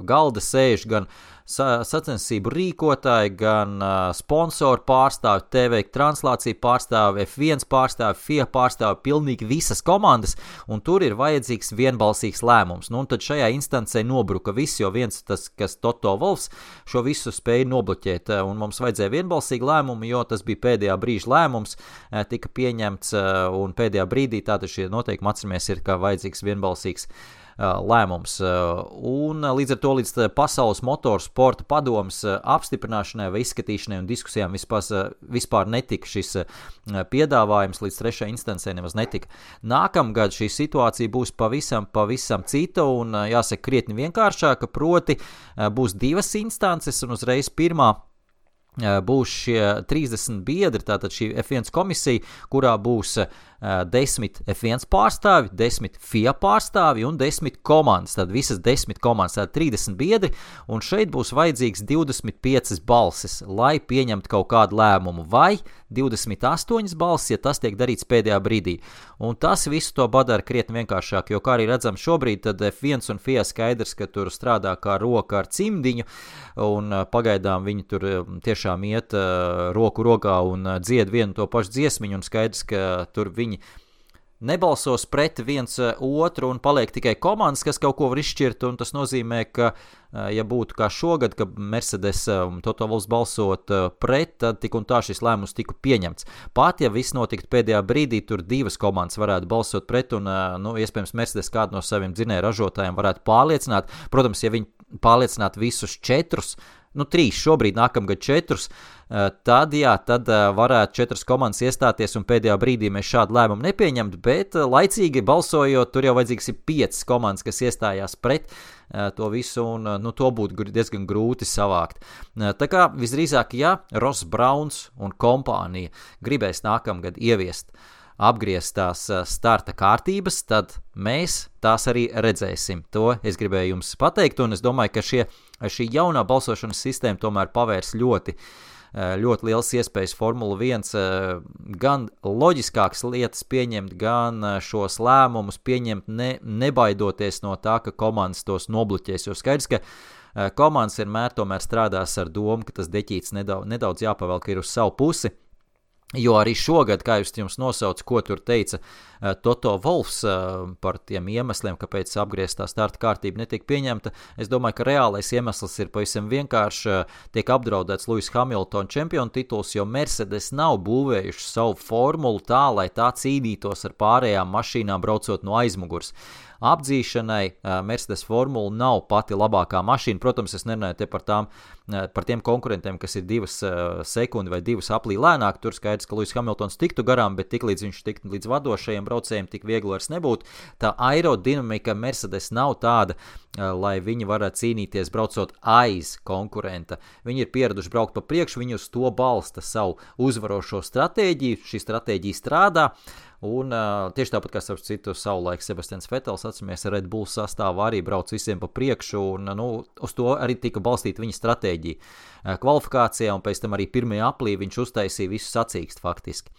galda sēž gan sacensību rīkotāji, gan sponsoru pārstāvi, TV translāciju pārstāvi, F1 pārstāvi, FIA pārstāvi, pilnīgi visas komandas, un tur ir vajadzīgs vienbalsīgs lēmums. Un tad šajā instancē nobruka viss, jo viens tas, kas Toto Wolffs šo visu spēja nobloķēt, un mums vajadzēja vienbalsīgu lēmumu, jo tas bija pēdējā brīža lēmums, tika pieņemts, un pēdējā brīdī tātad šie noteikumi atceramies ir, kā vajadzīgs vienbalsīgs lēmums. Un līdz ar to līdz Pasaules motorsporta padomes apstiprināšanai vai izskatīšanai un diskusijām vispār netika šis piedāvājums, līdz 3. instancē nemaz netika. Nākamgad šī situācija būs pavisam cita un jāsaka krietni vienkāršāka, proti būs 2 instances un uzreiz pirmā būs šie 30 biedri, tātad šī F1 komisija, kurā būs 10 F1 pārstāvi, 10 FIA pārstāvi un 10 komandas, tad visas 10 komandas, tad 30 biedri, un šeit būs vajadzīgs 25 balsis, lai pieņemtu kaut kādu lēmumu, vai 28 balsis, ja tas tiek darīts pēdējā brīdī. Un tas visu to padara krietni vienkāršāk, jo, kā arī redzam šobrīd, tad F1 un FIA skaidrs, ka tur strādā kā roka ar cimdiņu, un pagaidām viņi tur tiešām iet roku rokā un dzied vienu to pašu dziesmiņu, un skaidrs, ka tur viņi nebalsos pret viens otru un paliek tikai komandas, kas kaut ko var izšķirt, un tas nozīmē, ka, ja būtu kā šogad, ka Mercedes un Toto Wolffs balsot pret, tad tik un tā šis lēmums tika pieņemts. Pat, ja viss notiktu pēdējā brīdī, tur divas komandas varētu balsot pret, un, iespējams, Mercedes kādu no saviem dzinēju ražotājiem varētu pārliecināt. Protams, ja viņi pārliecinātu visus 4, 3, šobrīd nākamgad 4, tad varētu 4 komandas iestāties un pēdējā brīdī mēs šādu lēmumu nepieņemt, bet laicīgi balsojot, tur jau vajadzīgs ir 5 komandas, kas iestājās pret to visu, un to būtu diezgan grūti savākt. Tā kā visdrīzāk, ja Ross Browns un kompānija gribēs nākamgad ieviest apgrieztās starta kārtības, tad mēs tās arī redzēsim. To es gribēju jums pateikt, un es domāju, ka šī jaunā balsošanas sistēma tomēr pavērs ļoti liels iespējas Formula 1 gan loģiskākas lietas pieņemt, gan šos lēmumus pieņemt nebaidoties no tā, ka komandas tos nobluķēs, jo skaidrs, ka komandas vienmēr tomēr strādās ar domu, ka tas deķīts nedaudz jāpavelk ir uz savu pusi. Jo arī šogad, kā jūs jums nosauc, ko tur teica Toto Wolffs par tiem iemesliem, kāpēc apgrieztā starta kārtība netika pieņemta, es domāju, ka reālais iemesls ir pavisam vienkārši, tiek apdraudēts Lewis Hamilton čempionu tituls, jo Mercedes nav būvējuši savu formulu tā, lai tā cīnītos ar pārējām mašīnām braucot no aizmugurs. Apdzīšanai Mercedes formula nav pati labākā mašīna. Protams, es nerunāju te par tiem konkurentiem, kas ir 2 sekundi vai 2 aplī lēnāk. Tur skaidrs, ka Lewis Hamiltons tiktu garām, bet tiklīdz viņš tiktu līdz vadošajiem braucējiem, tik viegli vairs nebūtu. Tā aerodinamika Mercedes nav tāda, lai viņi varētu cīnīties braucot aiz konkurenta. Viņi ir pieraduši braukt pa priekšu, viņi uz to balsta savu uzvarošo stratēģiju, šī stratēģija strādā. Un tieši tāpat, kā starp citu savulaik Sebastians Vettels, atceramies, Red Bull sastāvā arī brauc visiem pa priekšu, un uz to arī tika balstīta viņa stratēģija kvalifikācijā, un pēc tam arī pirmajā aplī viņš uztaisīja visu sacīkst faktiski.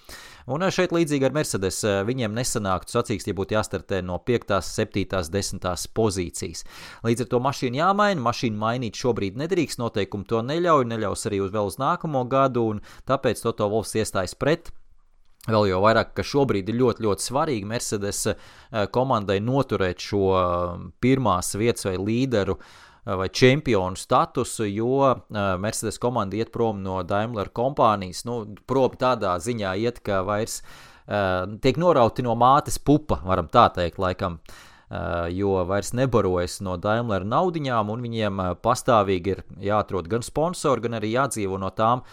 Un šeit līdzīgi ar Mercedes, viņiem nesanāktu sacīkst, ja būtu jāstartē no 5., 7., 10. pozīcijas. Līdz ar to mašīnu jāmaina, mašīnu mainīt šobrīd nedrīkst, noteikumi to neļaus arī vēl uz nākamo gadu, un tāpēc Toto Wolffs iestājas pret. Vēl jau vairāk, ka šobrīd ir ļoti, ļoti svarīgi Mercedes komandai noturēt šo pirmās vietas vai līderu vai čempionu statusu, jo Mercedes komanda iet prom no Daimler kompānijas, prom tādā ziņā iet, ka vairs tiek norauti no mātes pupa, varam tā teikt, laikam, jo vairs nebarojas no Daimler naudiņām, un viņiem pastāvīgi ir jāatrod gan sponsori, gan arī jādzīvo no tām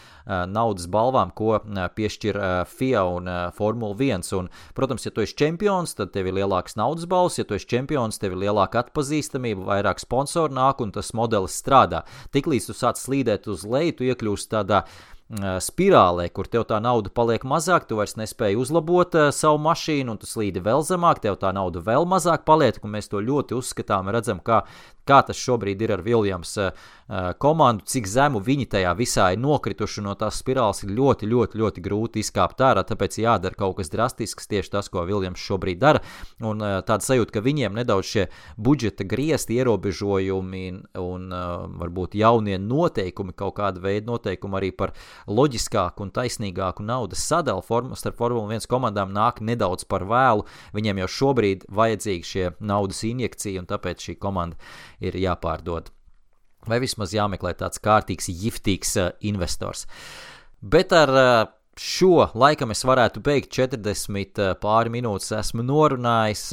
naudas balvām, ko piešķir FIA un Formula 1. Un, protams, ja tu esi čempions, tad tev ir lielāks naudas balvs, ja tu esi čempions, tev ir lielāka atpazīstamība, vairāk sponsoru nāk, un tas modelis strādā. Tiklīdz tu sāc slīdēt uz leju, tu iekļūst tādā spirālē, kur tev tā nauda paliek mazāk, tu vairs nespēji uzlabot savu mašīnu, un tu slīdi vēl zemāk, tev tā nauda vēl mazāk paliek, un mēs to ļoti uzskatām, redzam, kā tas šobrīd ir ar Williams komandu, cik zemu viņi tajā visā ir nokrituši, no tās spirāles ir ļoti, ļoti, ļoti grūti izkāpt ārā, tāpēc jādara kaut kas drastisks, tieši tas, ko Williams šobrīd dara, un tāda sajūta, ka viņiem nedaudz šie budžeta griezti, ierobežojumi un varbūt jaunie noteikumi, kaut kāda veida noteikumi arī par loģiskāku un taisnīgāku naudas sadalu starp Formula 1 komandām nāk nedaudz par vēlu, viņiem jau šobrīd vajadzīgi šie naudas injekcija, un tāpēc šī komanda ir jāpārdod. Vai vismaz jāmeklē tāds kārtīgs, jiftīgs investors. Bet ar šo laikam es varētu beigt 40 pāri minūtes esmu norunājis.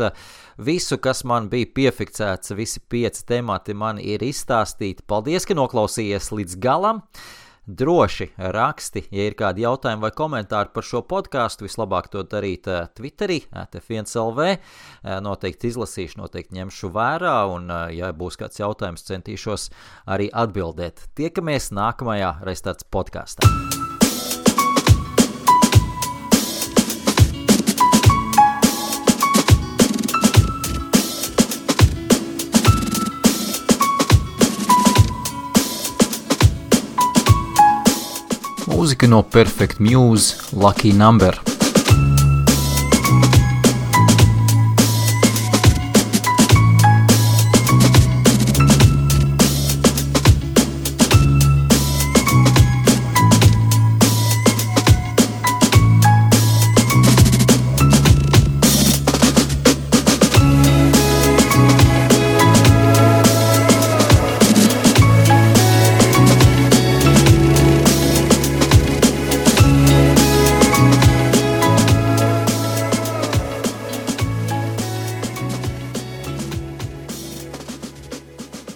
Visu, kas man bija piefiksēts, visi 5 temati man ir izstāstīti. Paldies, ka noklausījies līdz galam. Droši raksti, ja ir kādi jautājumi vai komentāri par šo podcastu, vislabāk to darīt Twitterī, F1LV, noteikti izlasīšu, noteikti ņemšu vērā, un ja būs kāds jautājums, centīšos arī atbildēt. Tiekamies nākamajā Restarts podkastā. Mūzika no Perfect Muse, Lucky Number.